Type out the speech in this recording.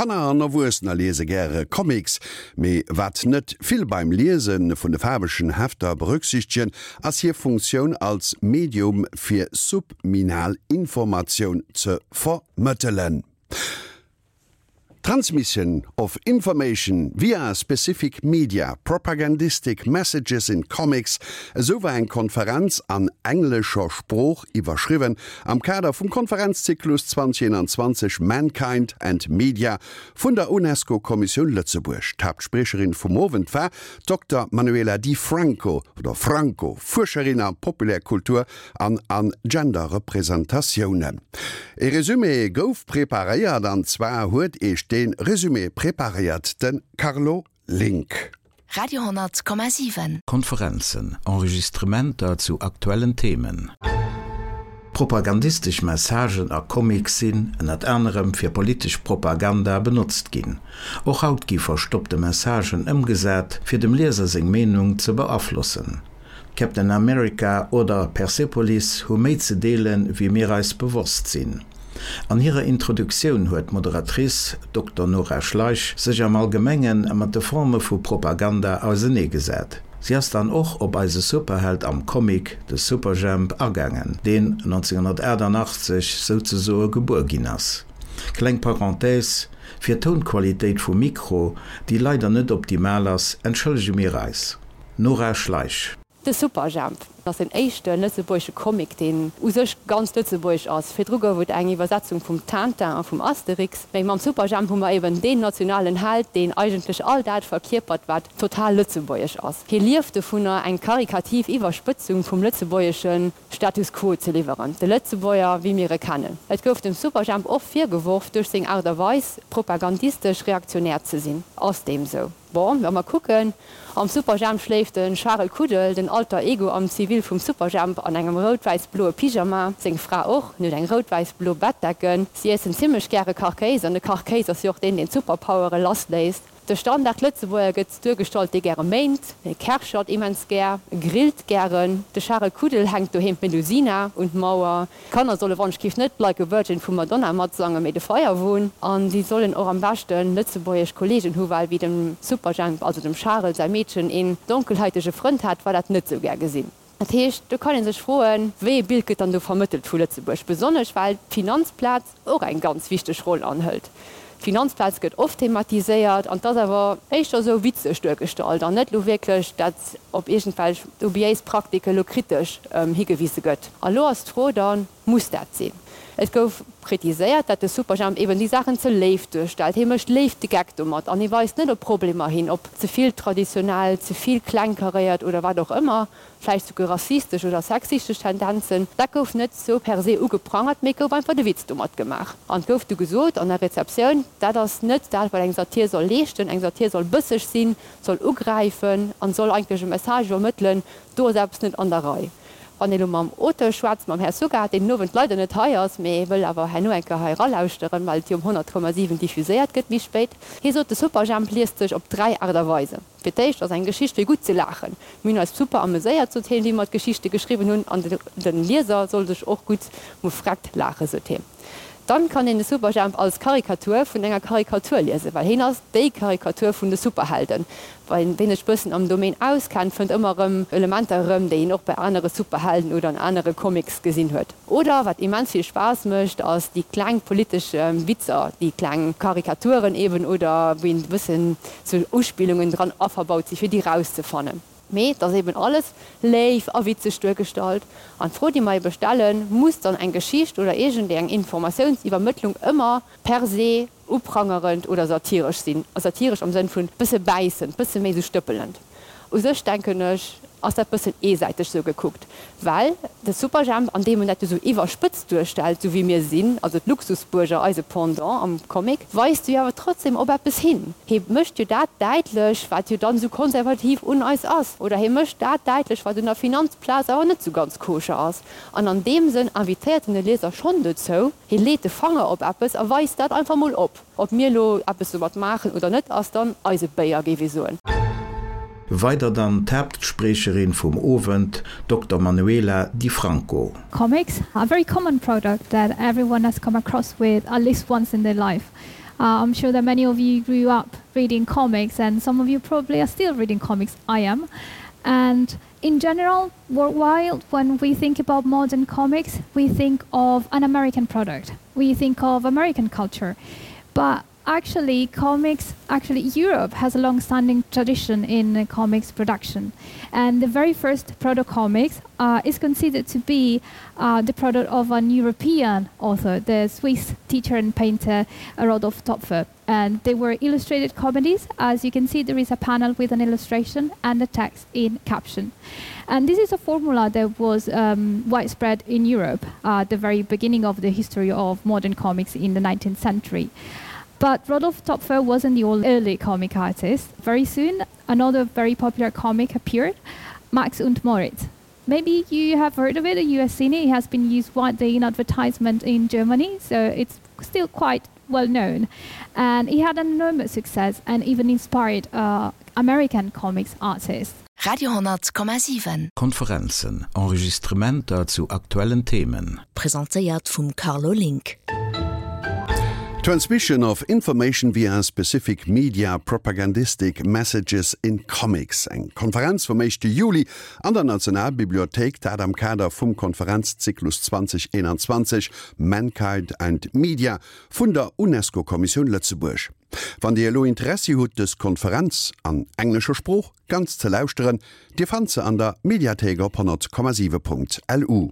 Kanner an Erwuessener liese gäre Comics, mee wat net vill beim Liese vun de faarwegen Hefter berücksichtegen, ass hir Funktioun als Medium fir subminal Informatioun ze vermëttelen. Transmission of information via specific media, propagandistic messages in comics, esou war eng Konferenz an englescher Sprooch iwwerschriwwen am Kader vum Konferenzzyklus 2021 Mankind and Media vun der UNESCO-Kommissioun Lëtzebuerg. D'Haaptspriecherin vum Owend war d'Dokter Manuela Di Franco, oder Franco, Fuerscherin a Populärkultur an an Gender-Representatiounen. E Resumé gouf preparéiert, an zwar huet Iech dee Resumé preparéiert de Carlo Link. Radio 10,7. Konferenzen, Enregistrementer zu aktuellen Themen. Propagandistesch Messagen a Comics sinn, ënnert anerem, fir politesch Propaganda benotzt ginn. Och haut gi verstoppte Messagen ëmgesat, fir dem Lieser seng Meenung ze beaflossen. Captain America oder Persepolis hu méi ze deelen, wéi mir eis bewosst sinn. An hirer Introduktioun huet d'Moderatrice, Dokter Nora Schleich, sech am Allgemenge mat de Forme vu Propaganda auseneegesat. Si ass dann och op eise Superheld am Comic, de Superjhemp, agaangen, deen 1988 souzesoe gebuer ginn ass. Kleng Parenthèse, Fir d'Tounqualitéit vum Mikro, déi leider net optimal ass, entschëllege mir eis. Nora Schleich. De Superjhemp ass den éischte lëtzebuergesche Comic, deen u sech ganz lëtzebuergesch ass. Virdru gouf et eng Iwwersetzung vum Tintin a vum Asterix, mee mam Superjhemp hu mer eben deen nationalen Held, deen eigentlech all dat verkierpert, wat total lëtzebuergesch ass. Hie lieft dovunner, eng karikativ Iwwerspëtzung vum lëtzebuergesche Status quo ze liwweren, de Lëtzebuerger, wéi mir e kennen. Et gouf dem Superjhemp och virgeworf, duerch seng Aart a Weis propagandistesch reaktionär ze sinn. Ass deem sou? Bon, wa mer kucken, am Superjhemp schléift de Charel Kuddel, den Alter Ego am Zivil vum Superjhemp, an engem rout-wäiss-bloe Pyjama, seng Fra och, en huet eng rout-wäiss-blo Bettdecken, si iessen zimmlech gäre Kachkéis, an de Kachkéis ass jo och deen, deen d'Superpowere lassléisst. De Standard-Lëtzebuerger gëtt duergestallt, dee gäre méint, e kerchert immens gär, e grillt gären. De Charel Kuddel hänkt doheem d'Melusina un d'Mauer. D'Kanner solle wann-ech-giff net Like a Virgin vum Madonna matsangen, mee de Feierwon. An si sollen och am beschten lëtzebuergesch Kollegen hu well wéi dem Superjhemp, also dem Charel säi Meedchen, een donkelhäitege Frënd hat, war dat net sou gär gesinn. Dat heescht, do kann ee sech froen, wéi ee Bild gëtt dann do vermëttelt vu Lëtzebuerg, besonnesch well d'Finanzplaz och eng ganz wichteg Roll anhëlt. D'Finanzplaz gëtt oft thematiséiert an 't ass awer éischter esou witzeg duergestallt an net elo wierklech, dat op iergendwelch dubiéis Praktike lo kritesch higewise gëtt. A lo ass d'Fro dann, Muss dat sinn? Et gouf kritiséiert, dat de Superjhemp eben déi Saachen ze léif duerstellt. Hie mécht léif de Geck domat an hie weist net op Problemer hin, op ze vill traditionell, ze vill klengkaréiert oder wat och ëmmer, vläicht souguer rassistesch oder sexistesch Tendenzen. Dat gouf net sou per se ugeprangert, mee et gouf einfach de Witz domat gemaach. An et gouf du gesot an der Rezeptioun, dat ass net dat, wat eng Satir soll leeschten. Eng Satir soll bësseg sinn, soll ugräifen an soll eigentlech e Message iwwermëttelen, do ass eppes net an der Rei. Wann ee lo mam Auteur schwätzt, mam Här Sugar, deen den Owend leider net hei ass, mee wëll awer herno eng Kéier hei eralauschteren, well et jo um 100,7 diffuséiert gëtt méi spéit, hie sot, de Superjhemp liest sech op 3 Aart a Weisen. Fir d'éischt ass eng Geschicht fir gutt ze laachen. Mir hunn eis super ameséiert, sot hien, wéi mer d'Geschichte geschriwwen hunn, an de Lieser soll sech och gutt mufreckt laachen, sot hien. Dann kann een de Superjhemp als Karikatur vun enger Karikatur liesen, well heen ass déi Karikatur vun de Superhelden. Wien sech bëssen am Domaine auskennt, fënnt ëmmer erëm Elementer erëm, déi een och bei anere Superhelden oder an anere Comics gesinn huet. Oder wat immens vill Spaass mécht, ass déi kleng politesch Witzer, déi kleng Karikaturen eben, oder wou een e bëssen sou Uspillungen dran averbaut si fir déi rauszefannen. Mee et ass eben alles léif a witzeg duergestallt. An d'Fro, déi mer ebe stellen, Muss dann eng Geschicht oder iergendeng Informatiounsiwwermëttlung ëmmer per se uprangerend oder satiresch sinn? Satiresch am Sënn vun bësse bäissend, bësse méi sou stëppelend. U sech, denken ech, ass dat bëssen eesäiteg sou gekuckt, well de Superjhemp, an deem en dat jo sou iwwerspëtzt duerstellt, sou wéi mir sinn, also d'Luxusbuerger, eise Pendant am Comic, weist jo awer trotzdem op eppes hin. Hie mécht jo dat däitlech, wat jo dann esou konservativ un eis ass, oder hie mécht dat däitlech, wat un der Finanzplaz awer net esou ganz koscher ass. An an deem Sënn invitéiert en de Lieser schonn dozou, hie leet de Fanger op eppes a weist dat einfach mol op. Ob mir elo eppes domat maachen oder net, ass dann eise Béier, géif ee soen. Weider dann d'Haaptspriecherin vum Owend, Dokter Manuela Di Franco. Comics are a very common product that everyone has come across with at least once in their life. Uh, I'm sure that many of you grew up reading comics and some of you probably are still reading comics. I am. And in general, worldwide, when we think about modern comics, we think of an American product. We think of American culture. But actually comics actually Europe has a long-standing tradition in comics production and the very first proto comics uh, is considered to be uh, the product of an European author the Swiss teacher and painter uh, Rodolf Topfer and they were illustrated comedies as you can see there is a panel with an illustration and a text in caption and this is a formula that was um, widespread in Europe uh, at the very beginning of the history of modern comics in the 19th century But Rodolf Topfer wasn't the only early comic artist. Very soon, another very popular comic appeared, Max und Moritz. Maybe you have heard of it, you have seen it. It has been used widely in advertisement in Germany, so it's still quite well known. And he had an enormous success and even inspired uh, American comics artists. Radio 10,7. Konferenzen, Enregistrementer zu aktuellen Themen. Presentéiert vum Carlo Link. Transmission of Information via Specific Media Propagandistic Messages in Comics, eng Konferenz vum éischte Juli an der Nationalbibliothéik, dat am Kader vum Konferenzzyklus 2021 Mankind and Media vun der UNESCO-Kommissioun Lëtzebuerg. Wann Dir elo Interessi hutt dës Konferenz, an englescher Sprooch, ganz ze lauschteren, Dir fannt se an der Mediathéik op 100,7.lu.